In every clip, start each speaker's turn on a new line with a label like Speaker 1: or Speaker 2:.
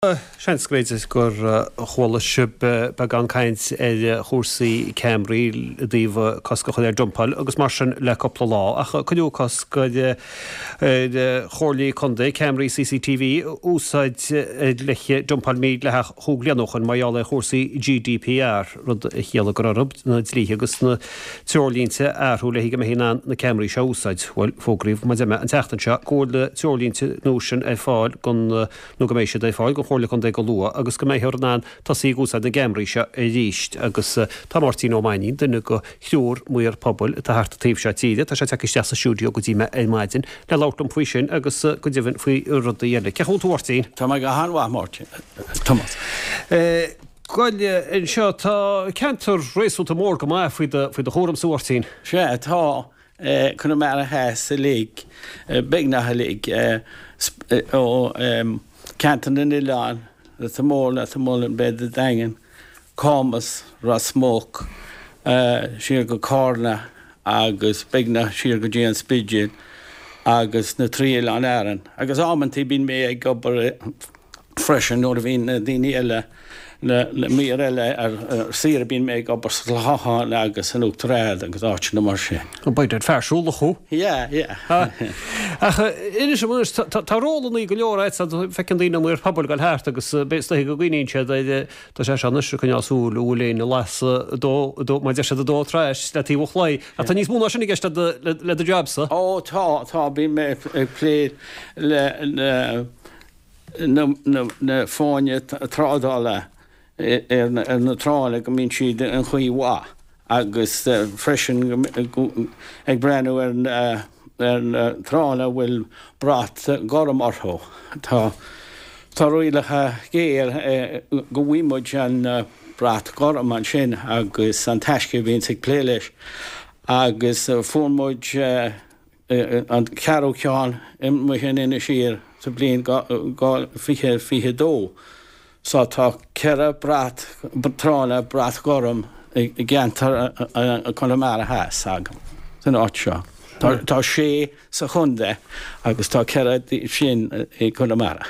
Speaker 1: Seans go mb'fhéidir gur chuala sibh beagán caint ar chúrsaí ceamaraí i dtaobh cosc a chur ar dumpáil agus mar sin le cúpla lá, ach cuireadh cosc ar chomhairlí contae ceamaraí CCTV a úsáid le dumpáil mhídhleathach chúig bliana ó shoin mar gheall ar chúrsaí GDPR, rud a chiallaigh go raibh orthu na dlíthe agus na treoirlínte a athrú le go mbeifí in ann na ceamaraí seo a úsáid. Bhuel, fógraíodh mar a deir mé an tseachtain seo go bhfuil na treoirlínte nua sin ar fáil don nó go mbeidh siad ar fáil don Chomhairle Contae go luath agus go mbeifear in ann tosaí ag úsáid na gceamaraí seo arís agus tá Máirtín Ó Mainnín, duine de thriúr maor pobail atá thart an taobh seo tíre, tá sé tagtha isteach sa stiúideo go dtí mé ar maidin le labhairt liom faoi sin agus go deimhin faoi rudaí eile. Cén chaoi a bhfuil tú a Mháirtín?
Speaker 2: Tá mé go han-mhaith Máirtín, Tomás.
Speaker 1: Bhuel, anseo tá ceantar réasúnta mór go maith faoi do chúramsa a Mháirtín.
Speaker 2: Sea, tá. Conamara Theas uilig, beagnach uilig, ó Ceantar na nOileán, Leitir Móir, Leitir Mealláin, Béal an Daingin, Camus, Ros Muc, siar go Cárna agus beagnach siar go dtí an Spidéal agus na trí oileán Árann. Agus amantaí bíonn mé ag obair freisin nuair a bhíonn na daoine eile, na maoir eile ar saoire, bíonn mé ag obair sa Chlochán agus in Uachtar Ard agus áiteanna mar sin.
Speaker 1: By dad fear siúlach thú.
Speaker 2: Yeah, yeah.
Speaker 1: Ach inis dom anois, tá rólannaí go leor agat, feiceann daoine an maor pobail ag dul thart agus is dóiche go gcuimhníonn siad ar, tá sé seo anois ag coinneáil súil an bhfuil éinne ag lasadh dó, mar a deir siad ag dó trais le taobh an chlaí. Ach tá níos mó ná sin i gceist le do jab-sa.
Speaker 2: Ó tá, tá, bíonn mé ag plé le na fáinní trádála ar na tránna go mbíonn siad in chaoi mhaith agus freisin ag breathnú ar na tránna a bhfuil brat gorm orthu. Tá tá rialacha géar go bhfaighidh muid an brat gorm ansin agus an Taisce a bhíonns ag plé leis agus fuair muid an ceathrú ceann amuigh in Inis Oírr sa bhliain 2022. So tá 4 brat tránna brat gorm i gceantar Chonamara Theas agam san áit seo. Tá sé sa chontae agus tá 4 díobh sin i gConamara.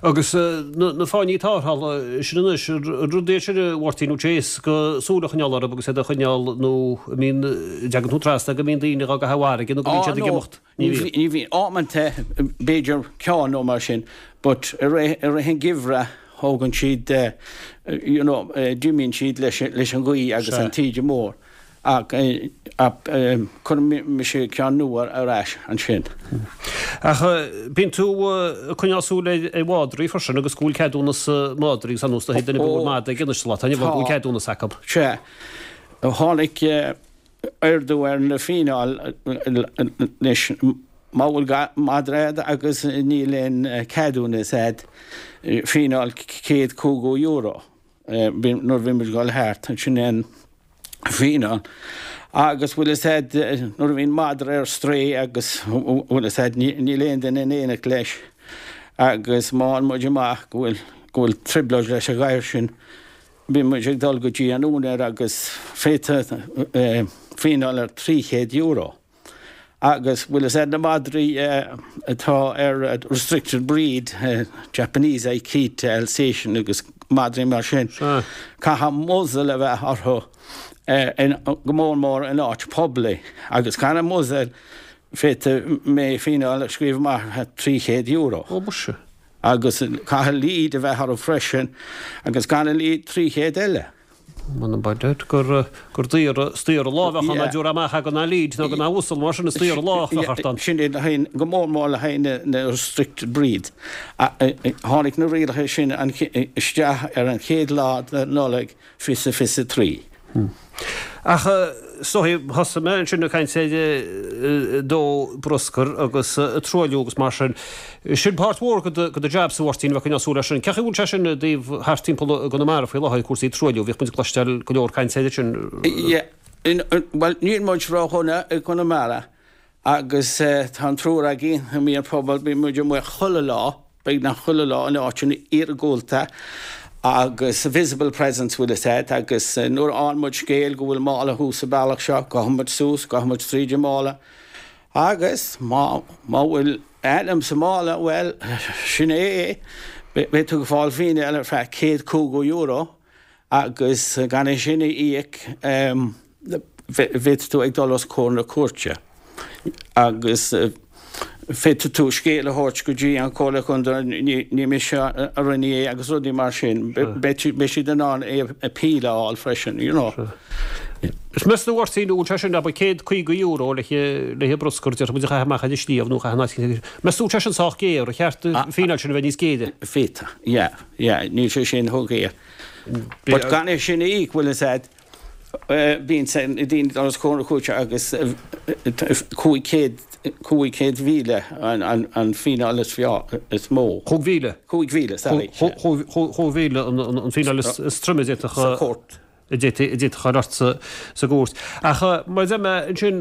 Speaker 1: Agus na fáinní tarrthála sin anois, an rud é sin a Mháirtín, nó éasca súil a choinneáil orthu agus iad a choinneáil nó an mbíonn, an dtagann tú trasna go mbíonn daoine dhá gcaitheamh i bhfarraige nó go mbíonn siad ag imeacht?
Speaker 2: Ní bhíonn. Ní bhíonn. Amanta, b'fhéidir ceann nó mar sin, but i rith an gheimhridh thógann siad, you know, d'imíonn siad leis an ghaoth agus an taoide mór. Ach cuireann mise ceann nua ar ais ansin.
Speaker 1: Ach bíonn tú ag coinneáil súil ar mhadraí freisin agus go bhfuil ceadúnas madraí agus ar nós duine go bhfuil madra ag anois sa lá atá inniu ann go bhfuil ceadúnas acu.
Speaker 2: Sea. Tháinig ardú ar na fíneáil anois. Má bhfuil madra agat agus níl aon ceadúnas agat, fíneáil €150. nuair a bhí muid ag dul thart, sin é an fíneáil. Agus bhfuil fhios a'd, nuair a bhíonn madra ar strae agus bhfuil fhios a'd, níl aon duine in éineacht leis agus má fhaigheann muid amach go bhfuil, go bhfuil trioblóid leis an ghadhar sin, bíonn muid ag dul go dtí an úinéir agus féadfaidh fíneáil ar €300. Agus bhfuil fhios a'd na madraí atá ar restricted breed, Japanese Akita, Alsatian agus madraí mar sin, caithfidh muzzle a bheith orthu go mór mór in áit poiblí. Agus gan an muzzle féadfaidh mé fíneáil a scríobh amach €300.
Speaker 1: Ó muise.
Speaker 2: Agus caithfidh lead a bheith orthu freisin agus gan an lead 300 eile.
Speaker 1: M'anam by dad gur gur daor is daor an lá a bheadh ann dá dtabharfá amach é gan an lead nó gan an muzzle mar sin is daor an lá a bheadh ort ann.
Speaker 2: Sin é le haghaidh, go mór mór le haghaidh na restricted breed. Tháinig na rialacha sin isteach ar an chéad lá de Nollaig 2023.
Speaker 1: Ach is dóigh, thosaigh mé ansin ag caint ar dó bruscair agus truailliú agus mar sin. Sin páirt mhór de do jab-sa, a Mháirtín, a bheith ag coinneáil súil air sin. Cén chaoi a bhfuil sé sin i dtaobh thart timpeall i gConamara faoi láthair, cúrsaí truailliú? Bhíodh muid ag cloisteáil go leor cainte air sin.
Speaker 2: Yeah, bhuel níl muid ródhona i gConamara agus tá an triúr againn, an maor pobail, bíonn muid amuigh chuile lá. beagnach chuile lá in áiteanna iargúlta agus visible presence bhfuil fhios a'd agus nuair a fhaigheann muid scéal go bhfuil mála thuas sa bealach seo, gabhann muid suas, gabhann muid tríd an mála agus má má bhfuil ainm sa mála, bhuel, sin é é. Beidh tú ag fáil fíneáil ar feadh €150 agus gan é sin a íoc féadfaidh tú ag dul os comhair na cúirte agus féadfaidh tú scéal a thabhairt go dtí an Comhairle Contae ní mise a rinne é agus rudaí mar sin. Beidh siad in ann appeal a fháil freisin, you know.
Speaker 1: Is meas tú a Mháirtín, an bhfuil sé sin, abair, €150 le haghaidh bruscar, déarfaidh muid a chaitheamh amach ar an sliabh nó a chaitheamh in áit éigin. Meas tú an bhfuil sé sin sách géar, ar cheart an fíneáil sin a bheith níos géire?
Speaker 2: Féadfaidh, yeah, yeah, níl sé sin chomh géar. But gan é sin a íoc, bhfuil fhios a'd, bíonn na daoine ag dul os comhair na cúirte agus 500, 500,000 an fíneáil is is mó.
Speaker 1: 5,000?
Speaker 2: 5,000, sorry.
Speaker 1: 5,000 an fíneáil is troime a d'fhéadfadh.
Speaker 2: Sa chúirt.
Speaker 1: a d'fhéadfadh a chur ort sa gcúirt. Ach mar a deir mé ansin,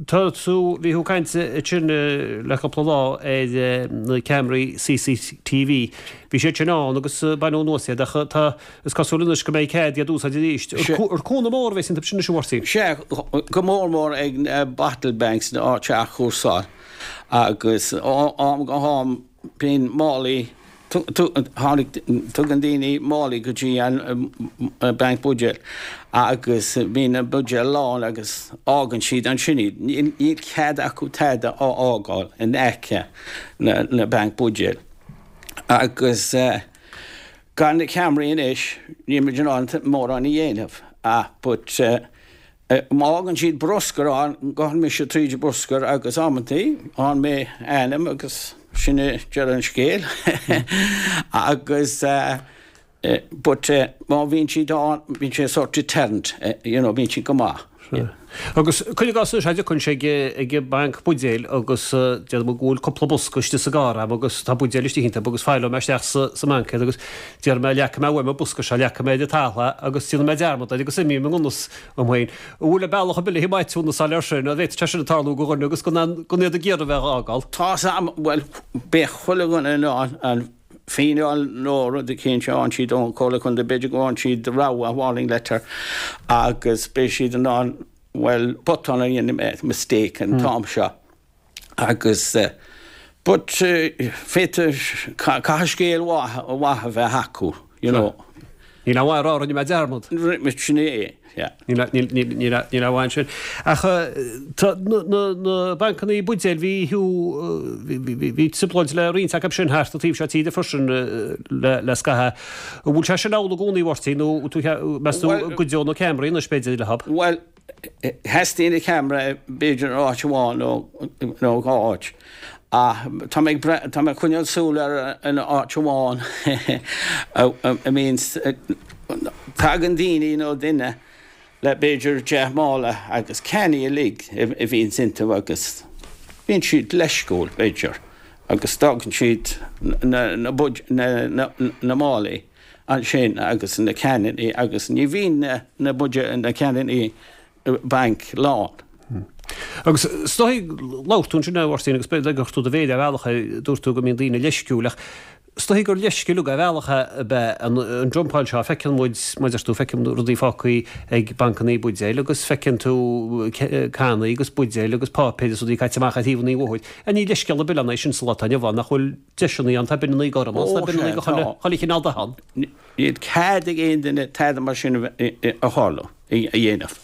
Speaker 1: tá tú, bhí tú ag caint ansin le cúpla lá ar na ceamaraí CCTV. Bhí siad sin ann agus baineadh anuas iad ach tá, is cosúil anois go mbeidh cead iad a úsáid arís. Ar cúnamh mór a bheas iontu sin anois, a Mháirtín?
Speaker 2: Sea, go mór mór ag na bottle banks, na áit a athchúrsáil agus ó am go ham Bíonn málaí, tháinig, tugann daoine málaí go dtí an banc buidéal agus bíonn na buidéil lán agus fhágann siad ansin iad. Níl cead acu tada a fhágáil in aice na banc buidéal. Agus gan na ceamaraí anois níl muid in ann mórán a dhéanamh ach but Má fhágann siad bruscar ann, gabhann mise tríd an bruscar agus amantaí faigheann mé ainm agus sin é deireadh an scéil. Agus but má bhíonn siad ann, bíonn sé sort deterrent, you know, bíonn siad go maith.
Speaker 1: Sea. Agus cuir i gcás anois, a dtiocfainnse ag an mbanc buidéil agus déarfaidh mé go bhfuil cúpla bosca istigh sa gcarr agam agus tá buidéil istigh iontu agus fáileoidh mé isteach sa mbanc iad agus déarfaidh mé leagfaidh mé uaim an bosca seo, leagfaidh mé ar an talamh é agus déanfaidh mé dearmad air agus imeoidh i ngan fhios dom féin. An bhfuil bealach ar bith le maithiúnas a fháil air sin? An bhféadfadh sé sin a tarlú do dhuine agus gan iad ag iarraidh a bheith á fhágáil?
Speaker 2: Tá's a'm, bhuel, beidh chuile dhuine in ann an fíneáil nó rud eicínt a fhaigheann siad ón Chomhairle Contae, b'fhéidir go bhfaigheann siad rabhadh, warning letter, agus beidh siad in ann, bhuel, botún a dhéanamh, mistake an t-am seo. Agus, but, féadfaidh, caithfidh scéal mhaith a bheith acu, you know.
Speaker 1: Níl aon mhaith a rá, rinne mé dearmad.
Speaker 2: Sin é, yeah.
Speaker 1: Níl aon mhaith ansin. Ach tá na bancannaí buidéil, bhí bhí trioblóid le roinnt acu sin thart an taobh seo tíre freisin le scaitheamh. An bhfuil sé sin amhlaidh i gcónaí, a Mháirtín, nó meas tú go gcuideoidh na ceamaraí anois b'fhéidir leo?
Speaker 2: Bhuel, Theastaigh na ceamara b'fhéidir in áit amháin nó dhá áit. Ach tá mé ag tá mé ag coinneáil súil ar an áit amháin a mbíonn tagann daoine nó duine le b'fhéidir 10 mála agus cannaí uilig a bhíonns iontu agus bíonn siad leisciúil b'fhéidir agus d'fhágann siad na na na málaí. ansin agus na cannaí agus ní bhíonn na buidéil, na cannaí bainc lán.
Speaker 1: Agus is dóigh, labhair tú ansin a Mháirtín agus b'fhéidir gur chuir tú do mhéar ar bhealach air, dúirt tú go mbíonn daoine leisciúil ach is dóigh gur leisce uilig ar bhealach ab ea an dumpáil seo, feiceann muid, mar a deir tú, feiceann rudaí fágtha ag bancannaí buidéil agus feiceann tú cannaí agus buidéil agus páipéir agus rudaí caite amach ar thaobh an bhóthair. Ní leithscéal ar bith ann é sin sa lá atá inniu ann nach bhfuil deiseanna ann, tá bineanna gorma ann, tá bineanna de chuile chineál dath ann.
Speaker 2: Níl cead ag aon duine tada mar sin a tharlú, a dhéanamh.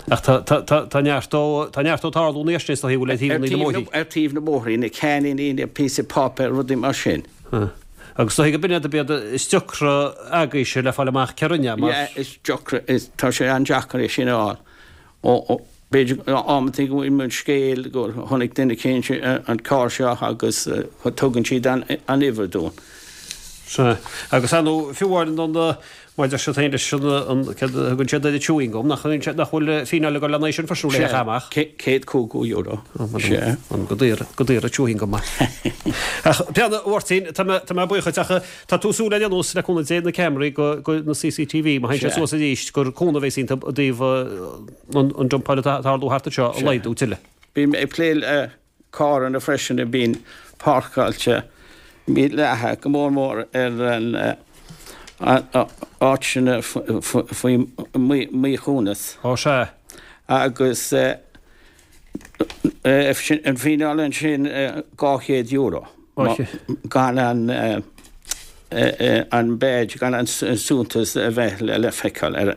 Speaker 1: Ach tá neart dó, tá neart dó ag tarlú anois is dóigh, bhfuil ar thaobh na mbóithrí.
Speaker 2: Ar taobh na mbóithrí, na ceainníní, na píosaí páipéir, rudaí mar sin.
Speaker 1: Agus is dóigh go b'in iad ab iad is deacra agaibhse le fáil amach cé rinne é, mar.
Speaker 2: Yeah, is deacra, tá sé an-deacair é sin a fháil. B'fhéidir amantaí go bhfuil muid scéal go chonaic duine eicínt an carr seo agus tugann siad an uimhir dúinn.
Speaker 1: Sea. Agus ar ndóigh, fiú amháin an mar a deir siad féin leis an, céard a thugann siad air, an chewing gum, nach nach bhfuil fíneáil ag dul lena aghaidh sin freisin le amach.
Speaker 2: €150. Sea.
Speaker 1: Go daor, go daor an chewing gum. Ach pé ar bith, a Mháirtín, tá mé, tá mé buíoch duit ach tá tú ag súil ar aon nós le cúnamh Dé na ceamaraí go, go na CCTV, má théann sé suas arís gur cúnamh a bheas iontu i dtaobh an dumpáil atá ag tarlú thart anseo a laghdú tuilleadh.
Speaker 2: Bím ag plé le carranna freisin a bhíonn páirceáilte mídhleathach, go mór mór ar an áiteanna faoi mhíchumas.
Speaker 1: Ó sea.
Speaker 2: Agus an fíneáil ansin €200 gan an. An badge gan an suntas a bheith le feiceáil ar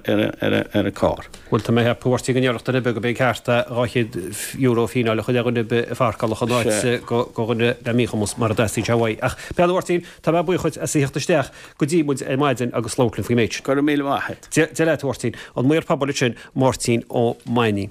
Speaker 2: an carr.
Speaker 1: Bhuel, tá mé ag ceapadh, a Mháirtín, go ndéarfadh duine ar bith gurb é an ceart é €200 fíneáil a chur ar dhuine ar bith a pharcálfadh in áit do dhuine le míchumas mara dteastaíonn sé uaidh. Ach, pé ar bith, a Mháirtín, tá mé buíoch dhuit as a theacht isteach go dtí muid ar maidin agus labhairt linn faoin méid sin.
Speaker 2: Go raibh míle maith agat.
Speaker 1: Dia leat, a Mháirtín. An Maor Pobail ansin, Máirtín Ó Mainnín.